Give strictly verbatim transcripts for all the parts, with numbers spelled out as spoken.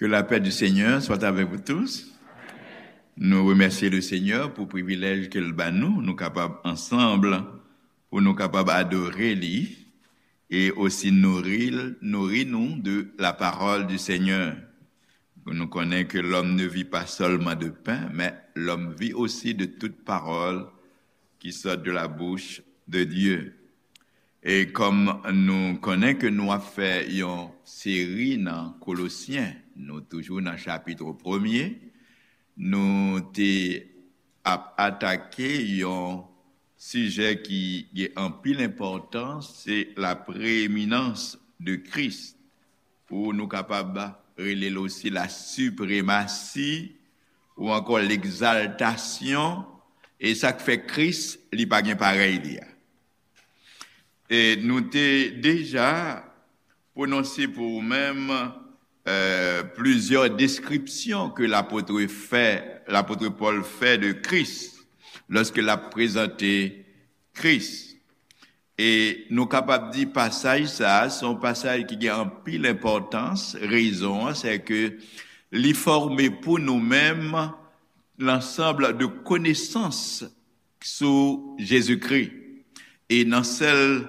Que la paix du Seigneur soit avec vous tous. Nou remèsye le Senyè pou privilèj ke l ba nou, nou kapab ansanm, pou nou kapab adore li e osi nouri, nouri nou de la parole du Seigneur. Nou konnen ke l'homme ne vit pas seulement de pain, mais l'homme vit aussi de toute parole qui sort de la bouche de Dieu. E kòm nou konnen ke nou ap fè yon seri nan Kolosyen, nou toujou nan chapit premye, nou te ap atake yon sijè ki gen anpil enpòtans, se la preeminans de Christ, ou nou kapab rele l osi la sipremasi, ou ankò legzaltasyon, e sa k fè Kris, li pa gen parèy li a. E nou te deja pwononse pou ou menm, euh, plizyè deskripsyon ke lapot fè, lapot Pòl fè de Kris, lòske l ap prezante Kris. E nou kapab di pasaj sa a, se yon pasaj ki gen anpil enpòtans. Rezon an, se ke li fòme pou nou menm lansanm de konesans sou Jezikri. E nan sèl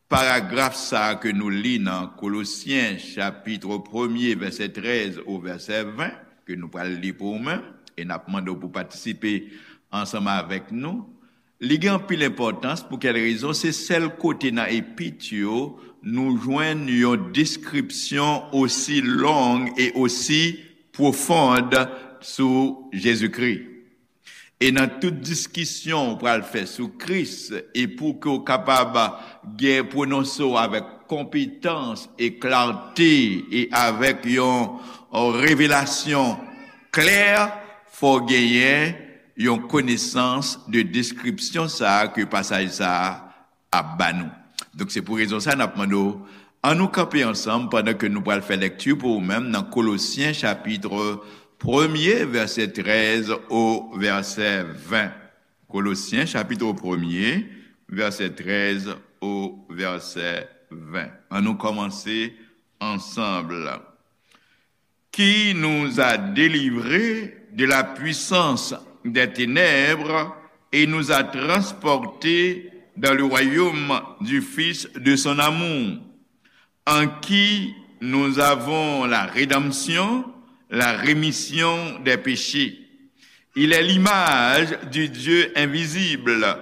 paragraf sa a ke nou li nan Kolosyen, chapit premye, vèsè trèz o vèsè ven, ke nou pral li pou ou menm, e n ap mande w pou patisipe ansanm avèk nou, li gen anpil enpòtans. Pou kèl rezon? Se sèl kote nan epit yo nou jwenn yon deskripsyon osi long e osi pwofond sou Jezikri. E nan tout diskisyon ou pral fè sou Kris, e pou ke w kapab gen pwononse w avèk konpetans e klarte e avèk yon, yon revelasyon klè, fò w genyen yon konesans de deskripsyon sa a ke pasaj sa a ap ba nou. Donk, se pou rezon sa a n ap mande w, ann nou kanpe ansanm pandan ke nou pral fè lekti pou ou menm nan Kolosyen chapit premye, vèsè trèz o vèsè ven. Kolosyen chapit premye, vèsè trèz o vèsè ven. Ann nou kòmanse ansanm. Qui nous a délivrés de la puissance des ténèbres et nous a transportés dans le royaume du Fils de son amour, en qui nous avons la rédemption, la rémission des péchés. Il est l'image du Dieu invisible,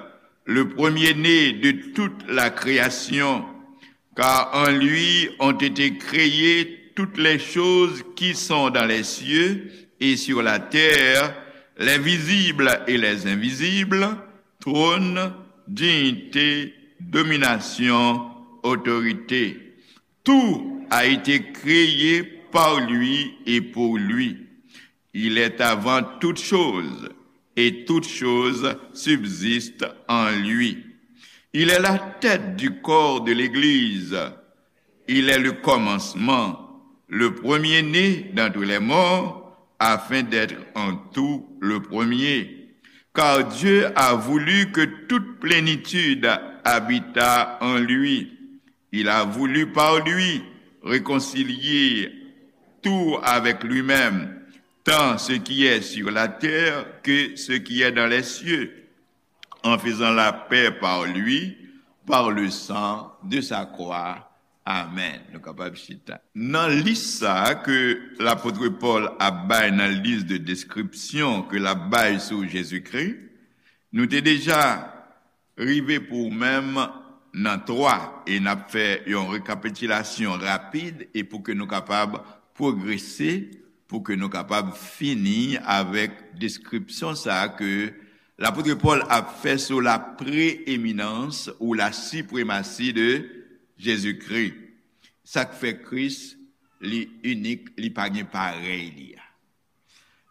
le premier-né de toute la création, car en lui ont été créées toutes les choses qui sont dans les cieux et sur la terre, les visibles et les invisibles, trône, dignité, domination, autorité. Tout a été créé par lui et pour lui. Il est avant toutes choses, et toutes choses subsistent en lui. Il est la tête du corps de l'Église. Il est le commencement, le premier-né d'entre les morts, afin d'être en tout le premier. Car Dieu a voulu que toute plénitude habitât en lui. Il a voulu par lui réconcilier tout avec lui-même, tant ce qui est sur la terre que ce qui est dans les cieux, en faisant la paix par lui, par le sang de sa croix. Amen. Nou kapab chita. Nan lis sa a ke lapot Pòl ap bay nan lis de deskripsyon ke l ap bay sou Jezikri, nou te deja rive pou ou menm nan twa, e n ap fè yon rekapitilasyon rapid e pou ke nou kapab pwogrese, pou ke nou kapab fini avèk deskripsyon sa a ke lapot Pòl ap fè sou la preeminans ou la sipremasi de Jezikri. Sa k fè Kris, li inik, li pa gen parèy li a.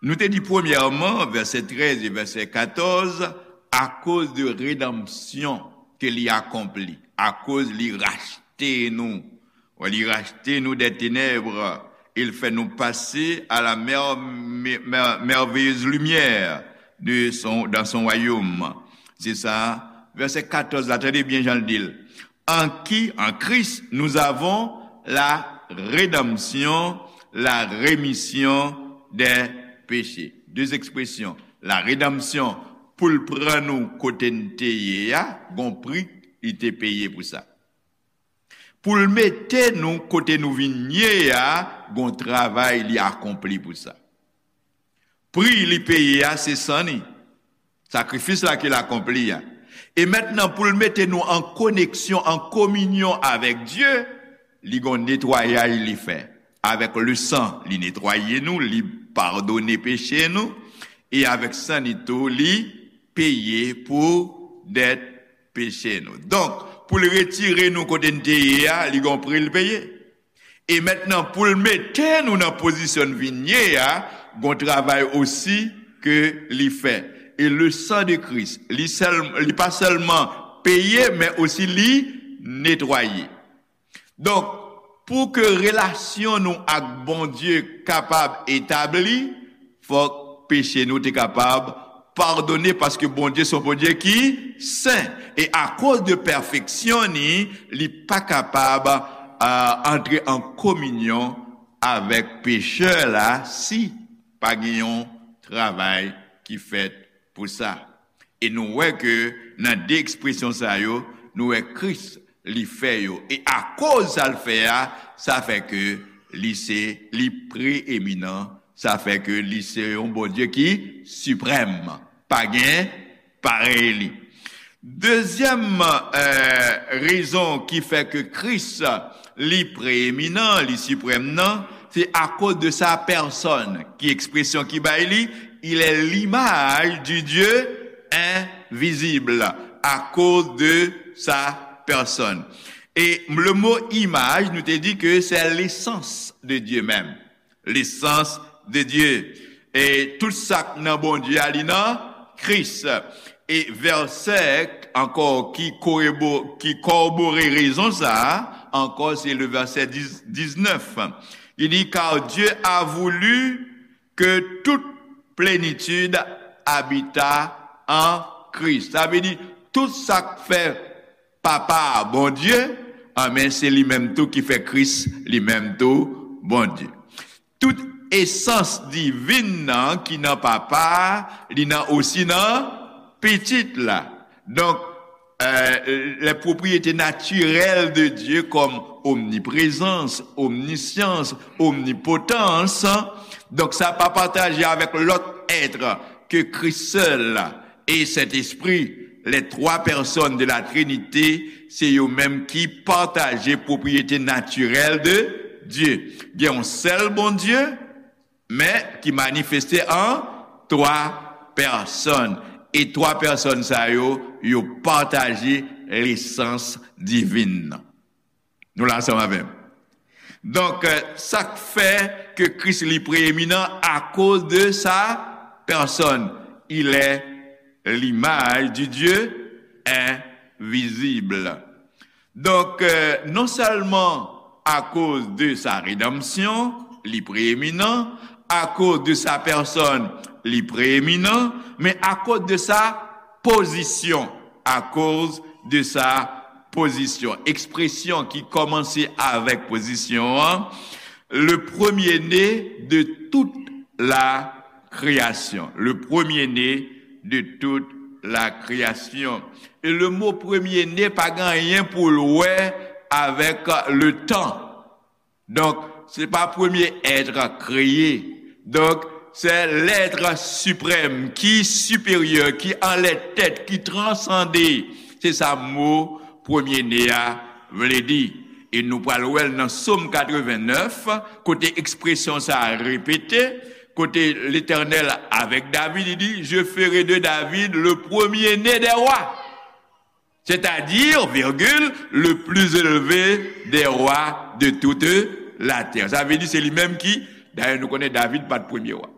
Nou te di premyèman, vèsè trèz e vèsè katòz, akoz de redanmsyon ke li akonpli, akoz li rachte nou. Wi, li rachte nou des ténèbres, il fait nous passer à la mer-, mer-, merveilleuse lumière de son, dans son royaume. Se sa, vèsè katòz la, tande byen jan l di l. En qui, en Christ, nous avons la rédemption, la rémission des péchés. De ekspresyon, la rédemption, pou l pran nou kote n te ye a, gon pri li te peye pou sa. Pou l mete nou kote nou vin ye a, gon travay li akonpli pou sa. Pri li peye a, se san li. Sakrifis la ke l akonpli a. E mentnan, pou l mete nou an koneksyon, an kominyon avèk Dye, li gon netwayaj li fè. Avèk le san, li netwaye nou, li padone peche nou, e avèk san li tou, li peye pou dèt peche nou. Donk, pou l retire nou kote n te ye a, li gon pri l peye. E mentnan, pou l mete nou nan pozisyon n vin ye a, gon travay osi ke li fè. E le sang de Christ, li sèl, li pa sèlman peye, men osi li netwaye. Donk, pou ke relasyon nou ak Bondye kapab etabli, fòk peche nou te kapab padone, paske Bondye se yon Bondye ki sen. E akoz de pèfeksyon ni, li pa kapab, a, antre an kominyon avèk pechè la si pa gen yon travay ki fèt pou sa. E nou wè ke nan de ekspresyon sa yo, nou wè Kris li fè yo. E akoz sa l fè a, sa fè ke li se, li preeminan, sa fè ke li se yon Bondye ki siprèm. Pa gen parèy li. Dezyèm, eh, rezon ki fè ke Kris li preeminan, li siprèm nan, se akoz de sa pèsòn, ki ekspresyon ki bay li, il est l'image du Dieu invisible, akoz de sa pèsòn. E le mo imaj, nou te di ke se lesans de Dye menm. Lesans de Dye. E tout sa k nan Bondye a, li nan Kris. E vèsè ankò ki korebo-, ki kòbore rezon sa a, ankò se le vèsè dis, diznèf. Li di, car Dieu a voulu que toute plénitude habitât en Christ. Sa vle di, tout sa k fè Papa a Bondye, anben, se li menm tou ki fè Kris li menm tou Bondye. Tout esans divin nan ki nan Papa a, li nan osi nan Pitit la. Donk, euh, les propriétés naturelles de Dieu comme omniprésence, omniscience, omnipotence, donk sa pa pataje avèk lòt èt ke Kris sèl e Sentespri, les trois personnes de la Trinité, se yo menm ki pataje pwopriyete natirèl de Dye. Gen yon sèl Bondye, men ki manifeste an twa pèsòn. E twa pèsòn sa yo, yo pataje lesans divin nan. Nou la ansanm avè m? Donk, euh, sa k fè ke Kris li preeminan akoz de sa pèsòn. Il est l'image du Dieu invisible. Donk, euh, non sèlman akoz de sa redanmsyon, li preeminan, akoz de sa pèsòn, li preeminan, men akoz de sa pozisyon, akoz de sa pozisyon. Ekspresyon ki kòmanse avèk pozisyon an, le premier-né de toute la création. Le premier-né de toute la création. E le mo premye ne pa gen anyen pou l wè avèk le temps. Donk, se pa premye èt kreye. Donk, se lèt siprèm ki siperyè, ki anlè tèt, ki transande. Se sa mo premye ne a vle di. E nou pral wè l nan Sòm katrevennnèf, kote ekspresyon sa a repete, kote Letènèl avèk David, li di, je ferai de David le premier-né des rois. C'est-à-dire, virgule, le plus élevé des rois de toute la terre. Sa vle di se li menm ki, dayè nou konnen David pa t premye wa.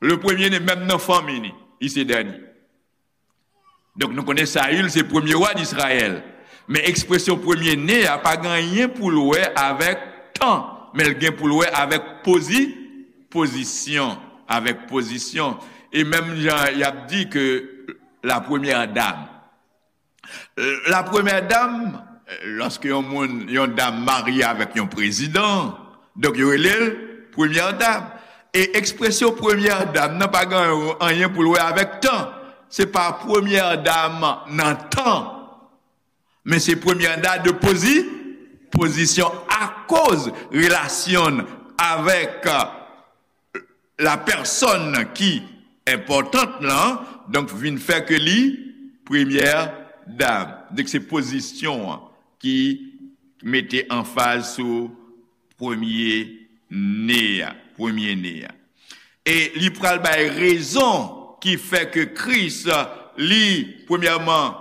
Le premier-né, menm nan fanmi ni, li se dènye. Donk nou konnen Sayil se premye wa d Izrayèl. Men ekspresyon premye-né a pa gen anyen pou l wè avèk tan, men l gen pou l wè avèk pozi-, pozisyon, avèk pozisyon. E menm jan y ap di ke la première dame, la première dame, lòske yon moun, yon dam marye avèk yon prezidan, donk yo rele l premyè dam. E ekspresyon premyè dam nan pa gen anyen pou l wè avèk tan. Se pa premyè dam nan tan, men se premyè dam de pozi, pozisyon akoz relasyon l avèk la pèsòn ki enpòtan lan, donk vin fè ke li premyè dam. Donk se pozisyon an ki mete anfaz sou premye ne a, premye ne a. E li pral bay rezon ki fè ke Kris, li, premyèman,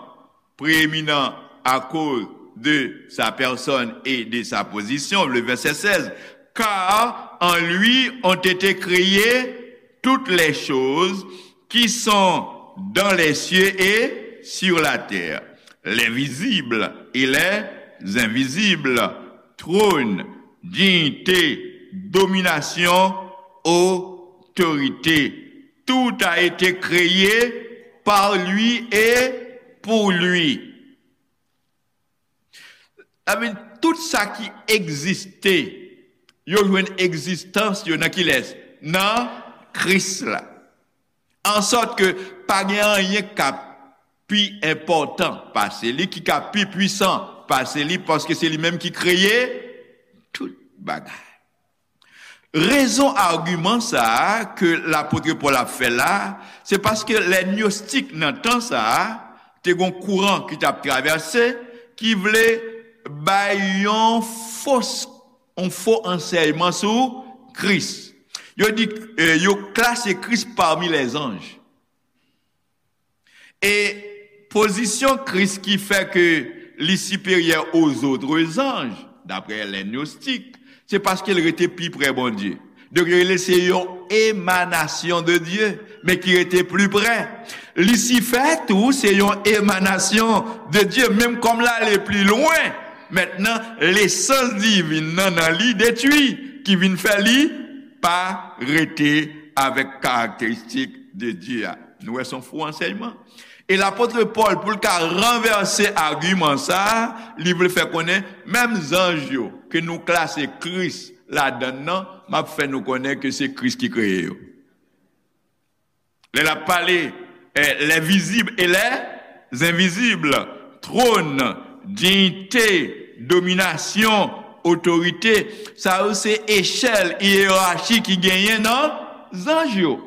prééminent à cause de sa personne et de sa position, le verset seize, car en lui ont été créées toutes les choses qui sont dans les cieux et sur la terre, les visibles et les invisibles, trône, dignité, domination, autorité. Tout a été créé par lui et pour lui. Sa vle di, tout sa ki egziste, yo jwenn egzistans yo nan kilès? Nan Kris la. Ansòt ke pa gen anyen k ap pi enpòtan pase li, ki ka pi pwisan pase li, paske se li menm ki kreye tout bagay. Rezon agiman sa a ke lapot Pòl ap fè la, se paske lè gnostik nan tan sa a, te gon kouran ki t ap travèse, ki vle bay yon fos, yon fo ansèyman sou Kris. Yo di, eh, yo klase Kris pami lèzanj. E pozisyon Kris ki fè ke li siperyè aux autres anges, daprè lè gnostik, se paske l rete pi prè Bondye. Donk, yo rele se yon emanasyon de Dye, men ki rete pli prè. Lisifè tou, se yon emanasyon de Dye, menm kòm l ale pli lwen. Mentnan, lesans divin nan, nan li detwi, ki vin fè li pa rete avèk karakteristik de Dye a. Nou wè se yon fo ansèyman. E lapot Pòl, pou l ka ranvèse agiman sa a, li vle fè konnen, menm zanj yo ke nou klase Kris ladan l nan, m ap fè nou konnen ke se Kris ki kreye yo. Lè l ap pale, eh, les visibles et les invisibles, trône, dignité, domination, autorité, sa yo se echèl, yerachi ki genyen nan zanj yo.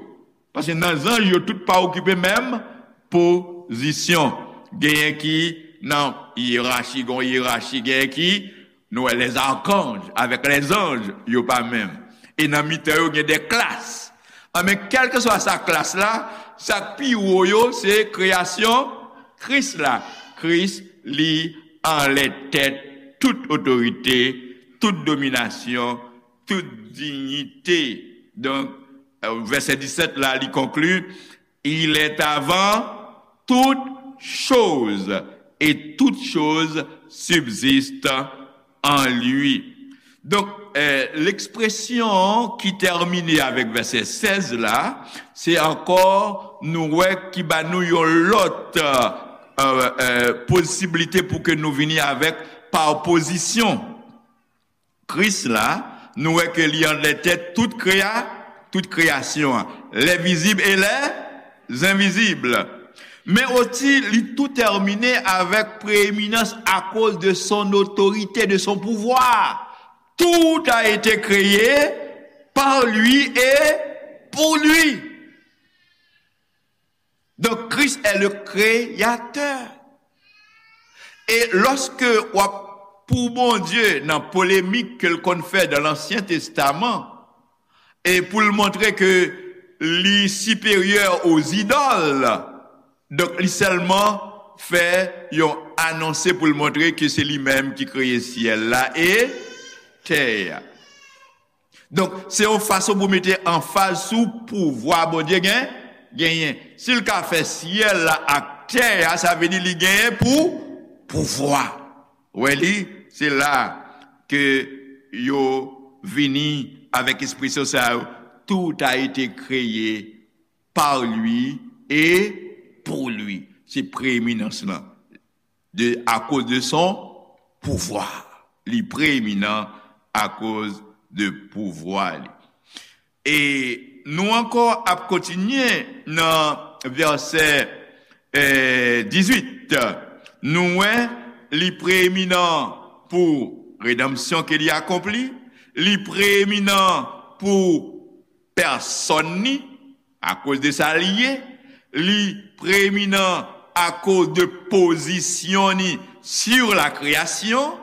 Paske nan zanj yo, tout pa okipe menm pozisyon. Genyen ki nan yerachi, gon yerachi, genyen ki, nou wè, les archanges avèk les anges, yo pa menm. E nan mitan yo, gen de klas. Anben, kèlkeswa sa klas la, sa k pi wo yo, se kreyasyon Kris la. Kris, li anlè tèt tout otorite, tout dominasyon, tout dinyite. Donk, euh, vèsè disèt la, li konkli, Il est avant toutes choses, et toutes choses subsistent en lui. Donk, eh, lekspresyon ki tèmine avèk vèsè sèz la, se ankò nou wè ki ba nou yon lòt, eh, eh, posiblite pou ke nou vini avèk pa opozisyon. Kris la, nou wè ke li anlè tèt tout kreya, tout kreyasyon an, les visibles et les invisibles. Men osi, li tou tèmine avèk prééminence à cause de son autorité, de son pouvoir. Tout a été créé par lui et pour lui. Donc, Christ est le créateur. E lòske w ap pou Bondye nan polemik ke l konn fè dan Lansyen Testaman, e pou l montre ke li siperyè aux idoles, donk li sèlman fè yon anonse pou l montre ke se li menm ki kreye syèl la e tè a. Donk, se yon fason pou mete anfaz sou pouvwa Bondye gen, genyen. Si l ka fè syèl la ak tè a, sa vle di li genyen pou pouvwa. Wè li, se la ke yo vini avèk ekspresyon sa yo, tout a été créé par lui et pour lui. Se preeminans lan. De, à cause de son pouvoir. Li preeminan akoz de pouvwa li. E nou ankò ap kontinye nan vèsè, eh, dizuit. Nou wè li preeminan pou redanmsyon ke li akonpli, li preeminan pou pèsòn ni, akoz de sa li ye, li preeminan akoz de pozisyon ni sur la création,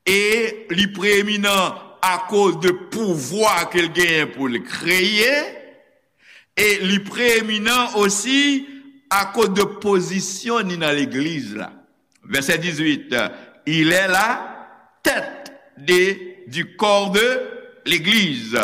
e li preeminan akoz de pouvwa ke l genyen pou l kreye, e li preeminan osi akoz de pozisyon ni nan legliz la. Verset dix-huit, il est la tête de, du corps de l'Église.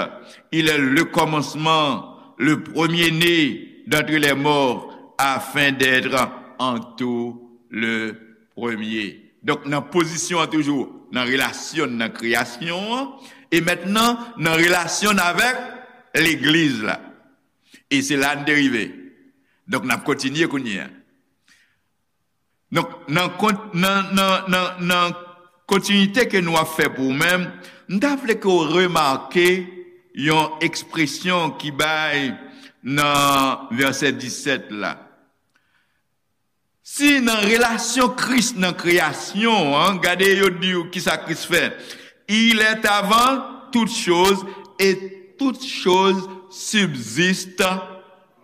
Il est le commencement, le premier-né d'entre les morts, afin d'être en tout le premier. Donk, nan pozisyon an toujou, nan relasyon nan kreyasyon an, e mentnan nan relasyon avèk legliz la. E se la n te rive. Donk, n ap kontinye kounye a. Donk, nan, nan, nan, nan, nan kontinite ke nou ap fè pou ou menm, m ta vle ke w remake yon ekspresyon ki bay nan vèsè disèt la. Si nan relasyon Kris nan kreyasyon an, gade yo di w kisa Kris fè. Il est avant toutes choses et toutes choses subsistent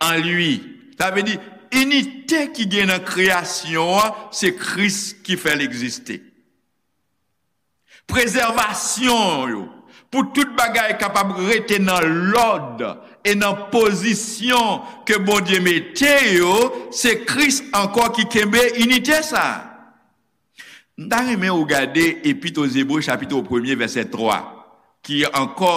en lui. Sa vle di, inite ki gen nan kreyasyon an, se Kris ki fè l egziste. Prezèvasyon yo, pou tout bagay kapab rete nan lòd e nan pozisyon ke Bondye mete yo, se Kris ankò ki kenbe inite sa a. M ta renmen ou gade Epit o Zebre, chapit premye, vèsè twa, ki ankò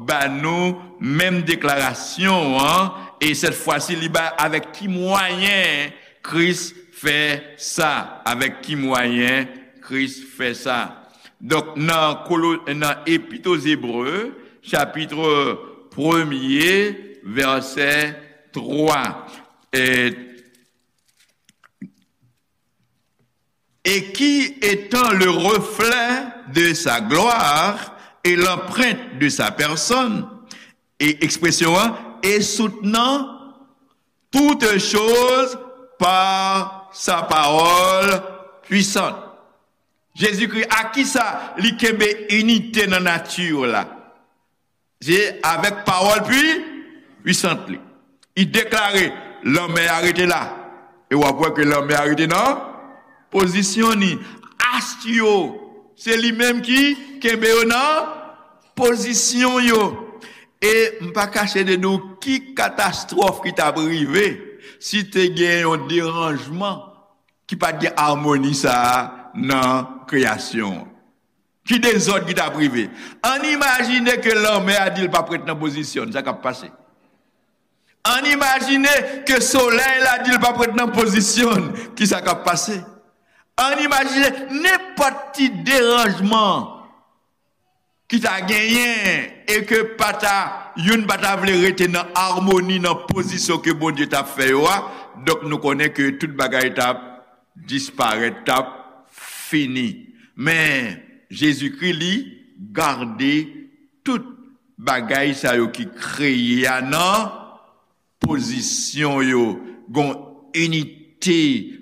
ba nou menm deklarasyon an, e sèt fwa si li ba avèk ki mwayen Kris fè sa, avèk ki mwayen Kris fè sa. Donk, nan Kolo-, nan Epit o Zebre, chapit premye, vèsè twa. E, et qui, étant le reflet de sa gloire et l'empreinte de sa personne, e ekspresyon an, et soutenant toutes choses par sa parole puissante. Jezikri, a kisa li kenbe inite nan nati la? Se avèk pawòl pwi-, pwisant li. Li deklare, lanmè a rete la. E w ap wè ke lanmè a rete nan pozisyon ni. Ast yo, se li menm ki kenbe yo nan pozisyon yo. E m pa kache de di w ki katastwòf ki t ap rive si te gen yon deranjman ki pa t gen amoni sa a nan kreyasyon an. Ki dezòd ki t ap rive? Ann imajine ke lanmè a di l p ap ret nan pozisyon l, sa k ap pase? Ann imajine ke solèy la di l p ap ret nan pozisyon l, ki sa k ap pase? Ann imajine nenpòt ti deranjman ki ta genyen e ke pa ta, youn pa ta vle rete nan amoni, nan pozisyon ke Bondye t ap fè yo a, donk nou konnen ke tout bagay t ap disparèt, t ap fini. Men, Jezikri, li gade tout bagay sa yo ki kreye a nan pozisyon yo, gon inite,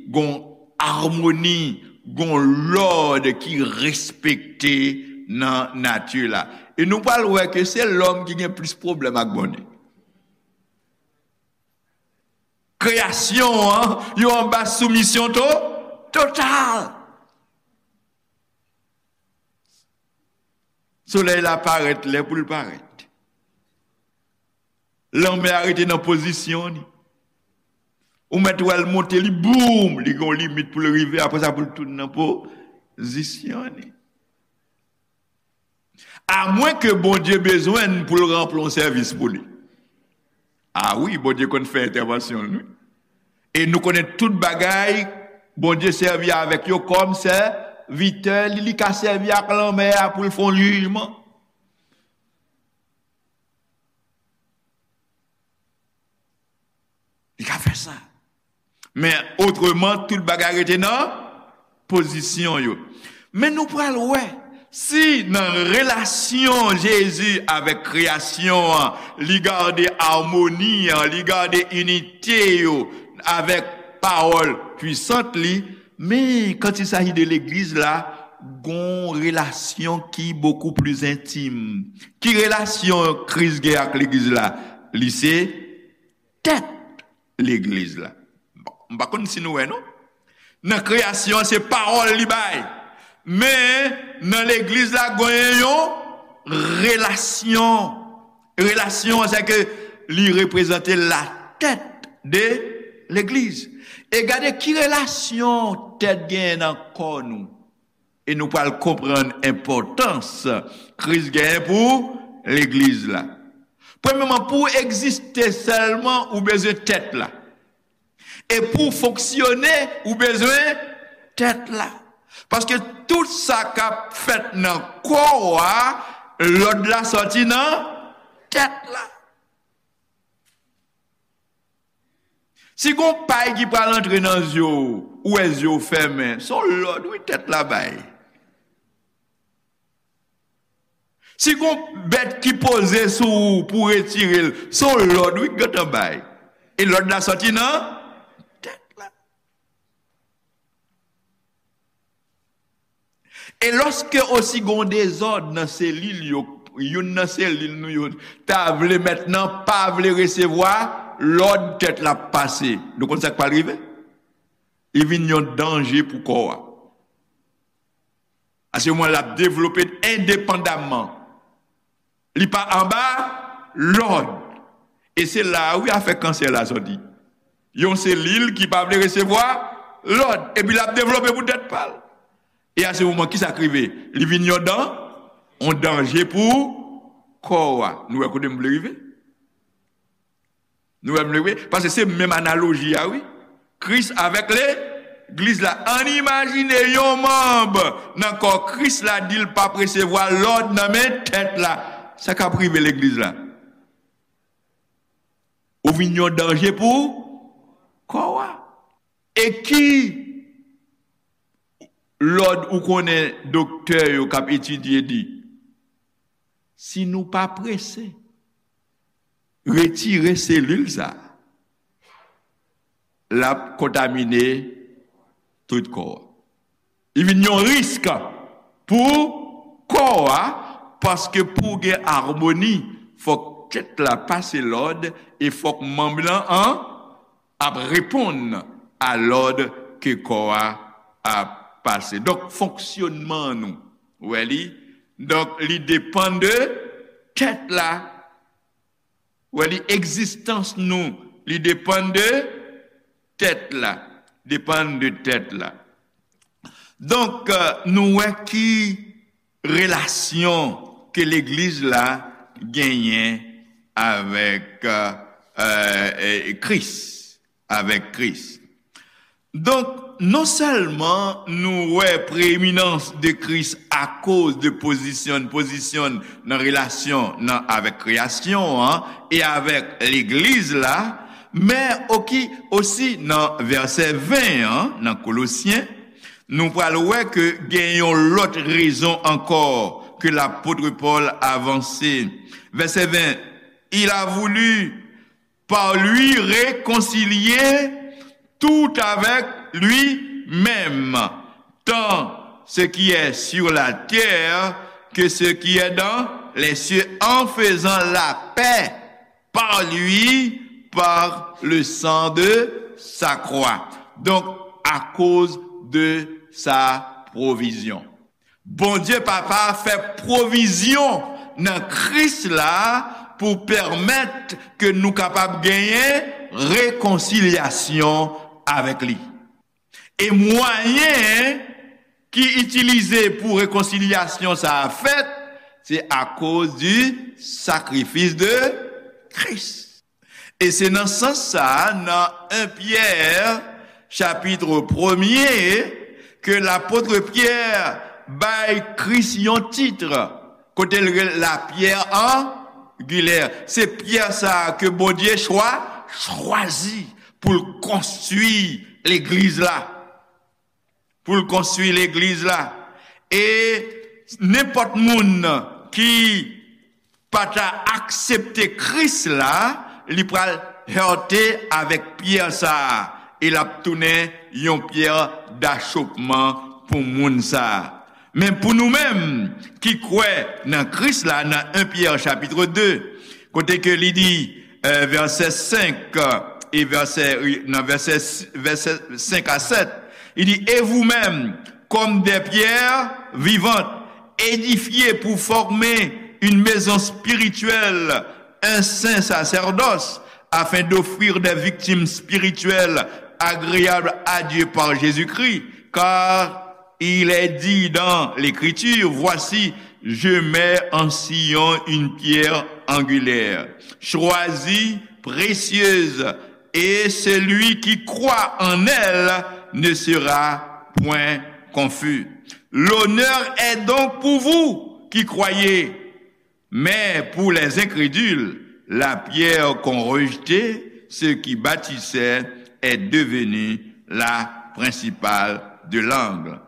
gon amoni, gon lòd ki respekte nan nati la. E nou pral wè ke se lòm ki gen plis pwoblèm ak Bondye. Kreyasyon an, yo anba soumisyon to-, total. Solèy la parèt lè pou l parèt. Lanmè a rete nan pozisyon li. Ou mèt wè l monte, li boum, li gen yon limit pou l rive, apre sa pou l tounen nan pozisyon li. Amwen ke Bondye bezwen n pou l ranpli yon sèvis pou li. A wi, Bondye konn fè entèvansyon l, wi. E nou konnen tout bagay, Bondye sèvi avèk yo kòm sèvitè li, li ka sèvi ak lanmè a pou l fè yon jijman. Li ka fè sa. Men otreman, tout bagay rete nan pozisyon yo. Men nou pral wè, Si nan relasyon Jezi avèk kreyasyon an, li gade amoni an, li gade inite yo avèk pawòl pwisant li, men quand il s'agit de legliz la, gon relasyon ki bokou pli entim. Ki relasyon Kris gen ak legliz la? Li se tèt legliz la. Bon, m pa konn si nou wè non. Nan kreyasyon an, se pawòl li bay. Men, nan legliz la, genyen yon relasyon. Relasyon an, se ke li reprezante latèt de legliz. E gade ki relasyon tèt genyen nan kò nou. E nou pral konprann enpòtans Kris genyen pou legliz la. Premyèman, pou w egziste sèlman, ou bezwen tèt la. E pou w fonksyone, ou bezwen tèt la. Paske tout sa k ap fèt nan kò a, lòd la sòti nan tèt la. Si gon pay ki pral antre nan zye w, ou wè zye w fèmen, se yon lòd wi tèt la bay. Si gon bèt ki poze sou ou pou w retire l, se yon lòd wi k gentan bay. E lòd la sòti nan tèt la. E lòske osi gon dezòd nan selil yo, youn nan selil nou yo ta vle mentnan pa vle resevwa lòd tèt la ap pase. Nou konn sa k pral rive? Li vin yon danje pou kò a. Paske mwen l ap devlope endepandamman. Li pa anba lòd. E se la a wi afè kansè la sòti. Yon selil ki pa vle resevwa lòd. Epi l ap devlope pou tèt pa l. E a se moman ki sa k rive? Li vin yon dan, yon danje pou kò a. Nou wè kote m vle rive? Nou wè m vle rive? Paske se menm analoji a wi. Kris avèk legliz la. Ann imajine yon manm nan kò Kris la di l p ap resevwa lòd nan men tèt la. Sa k ap rive legliz la? Ou vin yon danje pou kò a. E ki lòd ou konnen doktè yo k ap etidye di? Si nou pa prese retire selil sa, l ap kontamine tout kò a. Li vin yon risk pou kò a, paske pou gen amoni, fòk tèt la pase lòd e fòk manm lan an ap reponn a lòd ke kò a ap pase. Donk, fonksyonman nou, ou wè li, donk, li depann de tèt la. Ou wè li, egzistans nou, li depann de tèt la. Depann de tèt la. Donk, euh, nou wè ki relasyon ke legliz la genyen avèk, euh, euh, Kris, avèk Kris. Donk, non sèlman nou wè preeminans de Kris akoz de pozisyon, pozisyon nan relasyon nan avèk kreyasyon an e avèk legliz la, men oki, osi nan vèsè ven an, nan Kolosyen, nou pral wè ke gen yon lòt rezon ankò ke lapot Pòl avanse. Vèsè ven, il a voulu par lui réconcilier tout avec lui-même, tant ce qui est sur la terre que ce qui est dans les cieux, en faisant la paix par lui, par le sang de sa croix. Donc, à cause de sa provision. Bondye Papa fè pwovizyon nan Kris la pou pèmèt ke nou kapab genyen rekonsilyasyon avèk li. E mwayen ki itilize pou rekonsilyasyon sa a fèt, se akoz di sakrifis de Kris. E se nan sans sa a, nan en Pyè, chapit premye, ke lapot Pyè bay Kris yon tit, kote l rele la pierre angulaire. Se pyè sa a ke Bondye chwa, chwazi pou l konstwi legliz la. Pou l konstwi legliz la. E Nenpòt moun ki pa ta aksepte Kris la, li pral hète avèk pyè sa a, e l ap tounen yon pyè dachopman pou moun sa a. Men pou nou menm ki kwè nan Kris la, nan en Pyè chapit de, kote ke li di, eh, vèsè senk, eh, e vèsè, nan vèsè, vèsè senk a sèt, li di, Et vous-même, comme des pierres vivantes, édifiées pour former une maison spirituelle, un saint sacerdoce, afin d'offrir des victimes spirituelles agréables à Dieu par Jésus-Christ, car il est dit dans l'Écriture, Voici, je mets en Sion une pierre angulaire, choisie, précieuse, et celui qui croit en elle ne sera point confus. L'honneur est donc pour vous qui croyez, mais pour les incrédules, la pierre qu'ont rejetée ceux qui bâtissaient est devenue la principale de l'angle,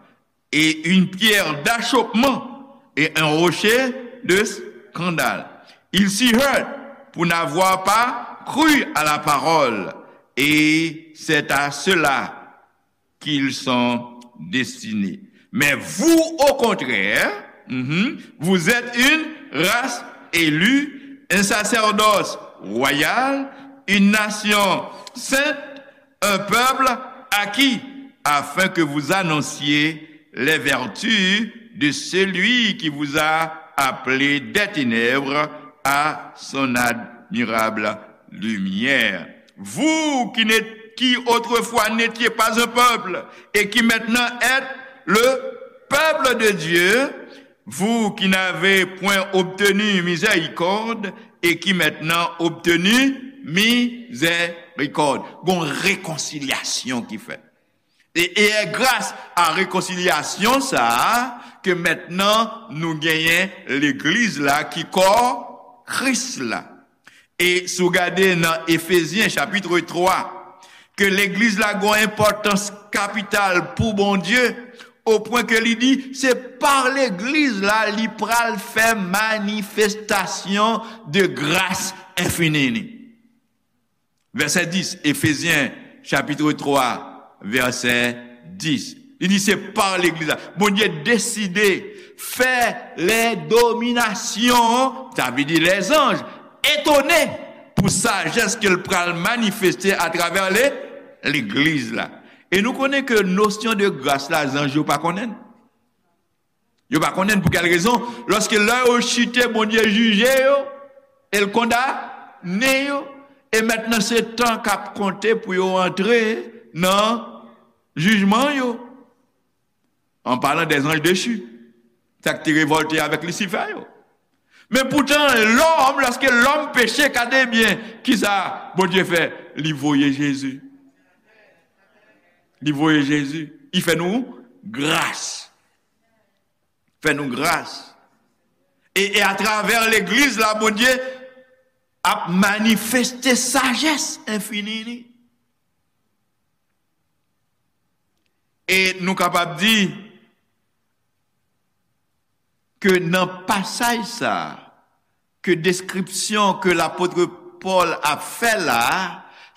et une pierre d'achoppement et un rocher de scandale. Ils s'y heurtent pour n'avoir pas cru à la parole, et c'est à cela qu'ils sont destinés. Mais vous, au contraire, mhm, vous êtes une race élue, un sacerdoce royal, une nation sainte, un peuple acquis, afin que vous annonciez les vertus de celui qui vous a appelé des ténèbres à son admirable lumière. Vous qui n'êtes, qui autrefois n'étiez pas un peuple et qui maintenant êtes le peuple de Dieu, vous qui n'avez point obtenu miséricorde et qui maintenant obtenu miséricorde. Gon rekonsilyasyon ki fèt. E, e e gras a rekonsilyasyon sa a ke mentnan nou genyen legliz la ki kò Kris la. E si w gade nan Efezyen chapit twa, ke legliz la gon enpòtans kapital pou Bondye, o pwen ke li di se pa legliz la li pral fè manifestasyon de gras enfini li. Vèsè dis, Efezyen chapit twa, vèsè dis. Li di se pa legliz la. Bondye deside fè lè dominasyon, sa vle di lèzanj, etone pou sajès ke l pral manifeste atravè le, legliz la. E nou konnen ke nosyon de gras la, zanj yo pa konnen l. Yo pa konnen pou kèl rezon. Lòske lè yo chite, Bondye jije yo, e l kondane yo, e mentnan se tan k ap konte pou yo antre nan jijman yo. An palan dè zanj dechi, sa k te revòlte avèk Lisifè yo. Men poutan, lòm, lòske lòm peche, gade byen, kisa Bondye fè? Li voye Jezi. Li voye Jezi. Li fè nou gras. Fè nou gras. E, e atravè legliz la, Bondye ap manifeste sajès enfini li. E nou kapab di ke nan pasaj sa a, ke deskripsyon ke lapot Pòl ap fè la a,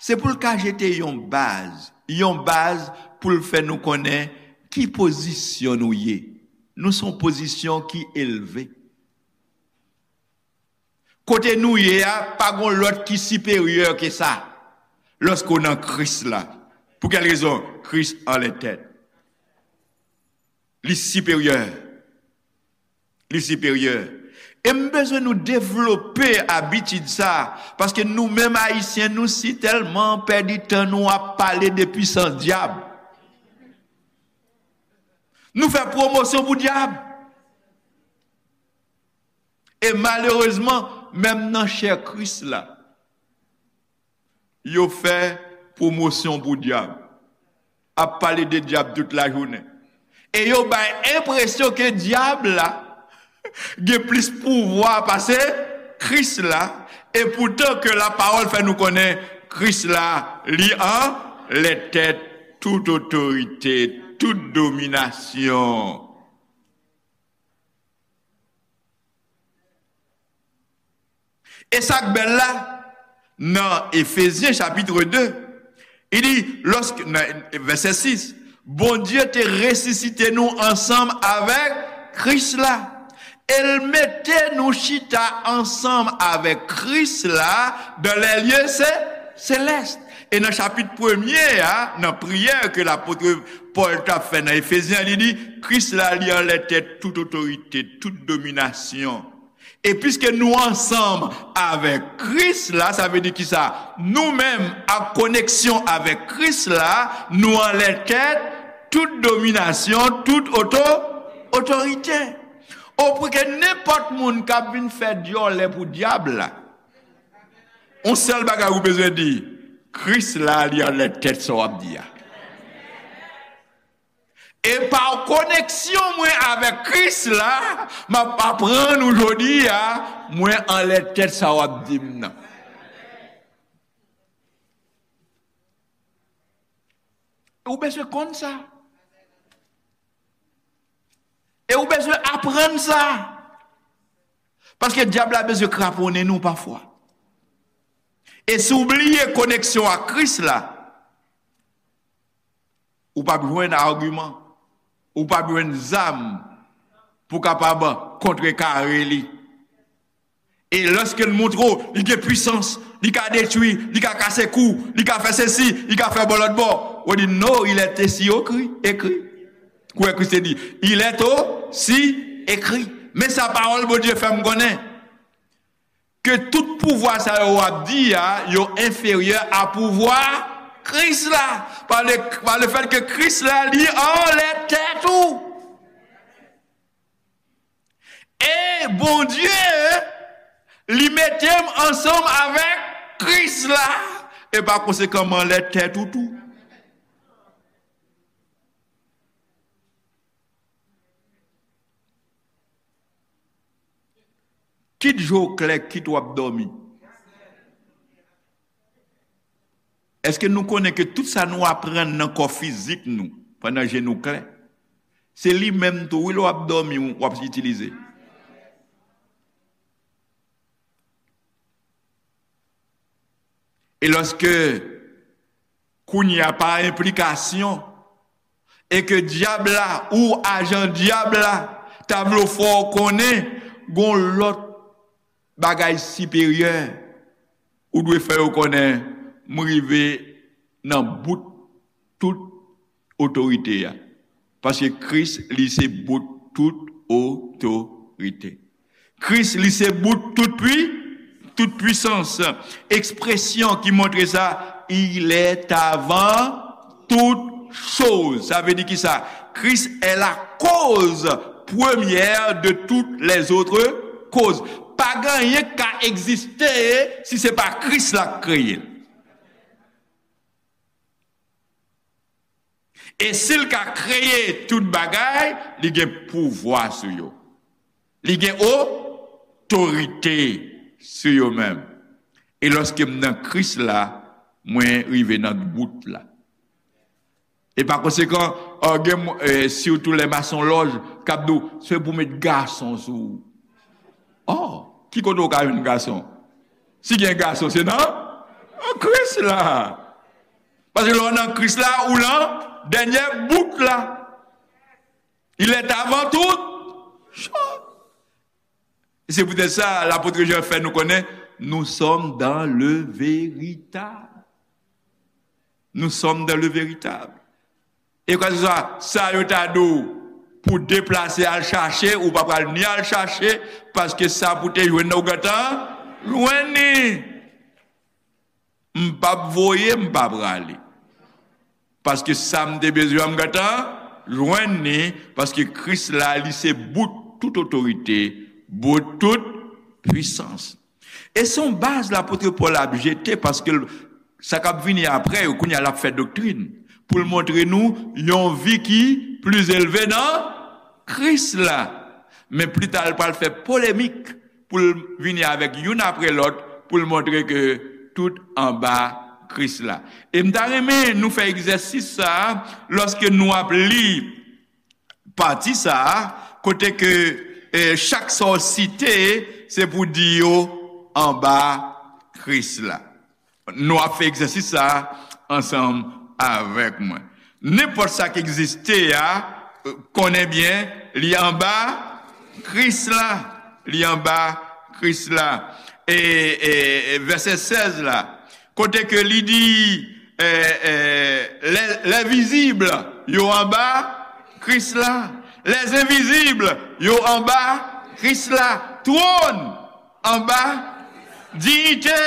se pou l ka jete yon baz, yon baz pou l fè nou konnen ki pozisyon nou ye. Nou se yon pozisyon ki elve. Kote nou ye a, pa gon lòt ki siperyè ke sa, lòske w nan Kris la. Pou kèl rezon? Kris anlè tèt. Li siperyè. Li siperyè. E m bezwen nou devlope abitid sa, paske nou menm Ayisyen, nou si tèlman pèdi tan nou ap pale de pwisans dyab. Nou fè pwomosyon pou dyab. E malerezman, menm nan chè Kris la, yo fè pwomosyon pou dyab. Ap pale de dyab tout lajounen. E yo bay enpresyon ke dyab la gen plis pouvwa pase Kris la, e poutan ke lapawòl fè nou konnen Kris la, li anlè tèt tout otorite, tout dominasyon. E sa k bèl la, nan Efezyen chapit de, li di, lòske, nan vèsè sis, Bondye te resisite nou ansanm avèk Kris la. E l mete nou chita ansanm avèk Kris la dans les lieux cé- célestes. E nan chapit premye a, nan priyè ke lapot Pòl t ap fè nan Efezyen, li di, Kris la, li anlè tèt tout otorite, tout dominasyon. E piske nou ansanm avèk Kris la, sa vle di kisa? Nou menm, ak koneksyon avèk Kris la, nou anlè tèt tout dominasyon, tout oto, otorite. Ou pou ke nenpòt moun k ap vin fè dyòlè pou dyab la, yon sèl bagay ou bezwen di, Kris la, li anlè tèt sa w ap di a. E pa koneksyon mwen avèk Kris la, m ap aprann ou jodi a, mwen anlè tèt sa w ap di m nan. Ou bezwen konn sa. E ou bezwen aprann sa. Paske dyab la bezwen kraponnen nou pafwa. E si w bliye koneksyon ak Kris la, ou p ap jwenn agiman, ou p ap jwenn zam pou kapab kontrekare li. E lòske l montre w, li gen pwisans, li ka detwi, li ka kase kou, li ka fè sesi, li ka fè bò lòt bò, ou di, non, il est aussi écrit, écrit. Kouwè Kris te di, il est aussi écrit. Men sa pawòl Bondye fè m konnen. Ke tout pouvwa sa yo w ap di a, yo enferyè a pouvwa Kris la. Pa le, pa le fèt ke Kris la, li anlè tèt ou. E Bondye, li mete m ansanm avèk Kris la. E pa konsekan, m anlè tèt ou tou. Kit je w klè, kit w ap dòmi. Èske nou konnen ke tout sa nou aprann nan kò fizik nou, pandan je nou klè, se li menm tou, wi, lè w ap dòmi, w ap itilize? E lòske kounye a pa enplikasyon, e ke dyab la ou ajan dyab la ta vle w fè w konnen gon lòt bagay siperyè, ou dwe fè yo konnen, m rive nan bout tout otorite a. Paske Kris, li se bout tout otorite. Kris, li se bout tout pwi, tout pwisans. Ekspresyon ki montre sa, il est avant toutes choses. Sa vle di kisa? Kris est la cause première de toutes les autres causes. Pa gen anyen k ka egziste si se pa Kris la k kreye l. E si l ka kreye tout bagay, li gen pouvwa sou yo. Li gen otorite sou yo menm. E lòske m nan Kris la, mwen rive nan bout la. E pa konsekan, o, gen, e, sitou lè masonlòj k ap di w, se pou met gason sou ou. O, ki kote w ka jwenn gason? Si gen gason, se nan, nan Kris la. Paske lè w nan Kris la, ou nan dènyè bout la. Il est avant toutes choses. E se poutèt sa, lapot Jan fè nou konnen, nous sommes dans le véritable. Nous sommes dans le véritable. E kwa se swa, sa yo ta di w pou deplase al chache, ou pa pral ni al chache, paske sa pou te jwenn nan ou gentan jwenn li. M p ap voye, m pa prale. Paske sa m te bezwen an, m gentan jwenn li, paske Kris la, li se bout tout otorite, bout tout pwisans. E se yon baz lapot Pòl ap jete, paske l, sa k ap vini apre yo, kounye a l ap fè doktrin, pou l montre nou yon vi ki pli elve nan Kris la. Men pita, l pral fè polemik pou l vini avèk youn apre lòt, pou l montre ke tout anba Kris la. E m ta renmen nou fè egzèsis sa a, lòske nou ap li pati sa a, kote ke, eh, chak sa w site, se pou di yo anba Kris la. Nou ap fè egzèsis sa a ansanm avèk mwen. Nenpòt sa k egziste a, konnen byen, li anba Kris la. Li anba Kris la. E, e, e vèsè sèz la, kote ke li di, e, e, lè, lè vizib yo anba Kris la. Lè envizib yo anba Kris la. Twòn anba, diyite,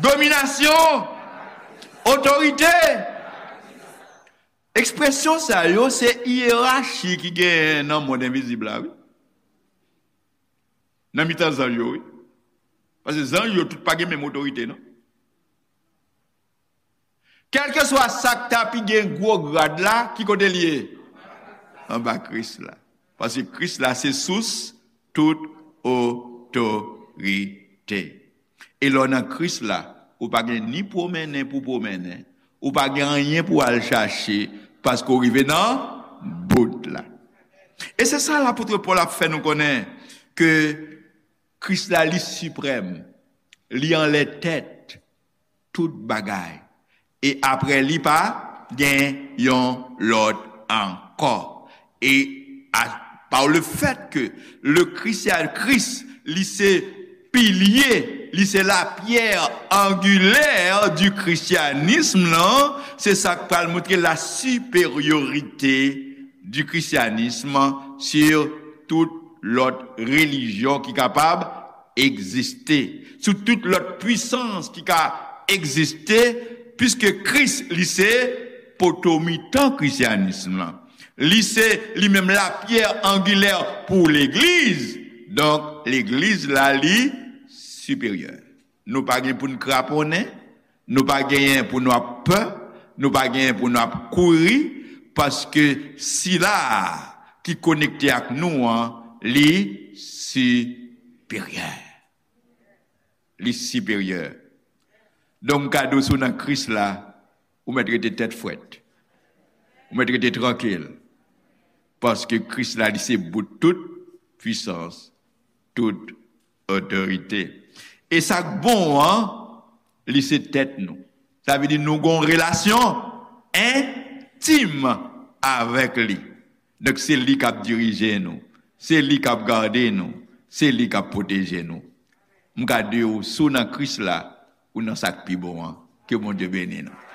dominasyon, otorite. Ekspresyon sa yo se yerachi ki genyen nan mond envizib la, wi. Nan mitan zanj yo, wi. Paske zanj yo tout pa gen menm otorite, non. Kèlkeswa sa k ta pi gen gwo grad la, ki kote l ye? Anba Kris la. Paske Kris la se sous tout otorite. E lè w nan Kris la, ou pa gen ni pwomennen pou pwomennen, ou pa gen anyen pou al chache, paske w rive nan bout la. E se sa lapot Pòl ap fè nou konnen, ke Kris la li siprèm, li anlè tèt tout bagay. E apre li pa gen yon lòt ankò. E a, par le fait que le christian, Kris, li se pilye, li se la pierre angulaire du christianisme lan, se sa k pral montre la supériorité du christianisme sur tout lòt relijyon ki kapab egziste, sou tout lòt pwisans ki ka egziste, piske Kris, li se poto mitan krisyanism lan. Li se li menm la pierre angulaire pou legliz. Donk, legliz la, li siperyè. Nou pa gen pou n kraponnen, nou pa genyen pou nou ap pè, nou pa genyen pou nou ap kouri, paske sila a ki konekte ak nou an, li siperyè. Li siperyè. Donk, m ka di w, si w nan Kris la, ou mèt rete tèt frèt. Ou mèt rete trankil. Paske Kris la, li se bout tout pwisans, tout otorite. E sa k bon an, li se tèt nou. Sa vle di nou gon relasyon entim avèk li. Donk, se li k ap dirije nou. Se li k ap gade nou. Se li k ap pwoteje nou. M ka di w, si w nan Kris la, ou nan sa k pi bon an. Ke Bondye beni nou.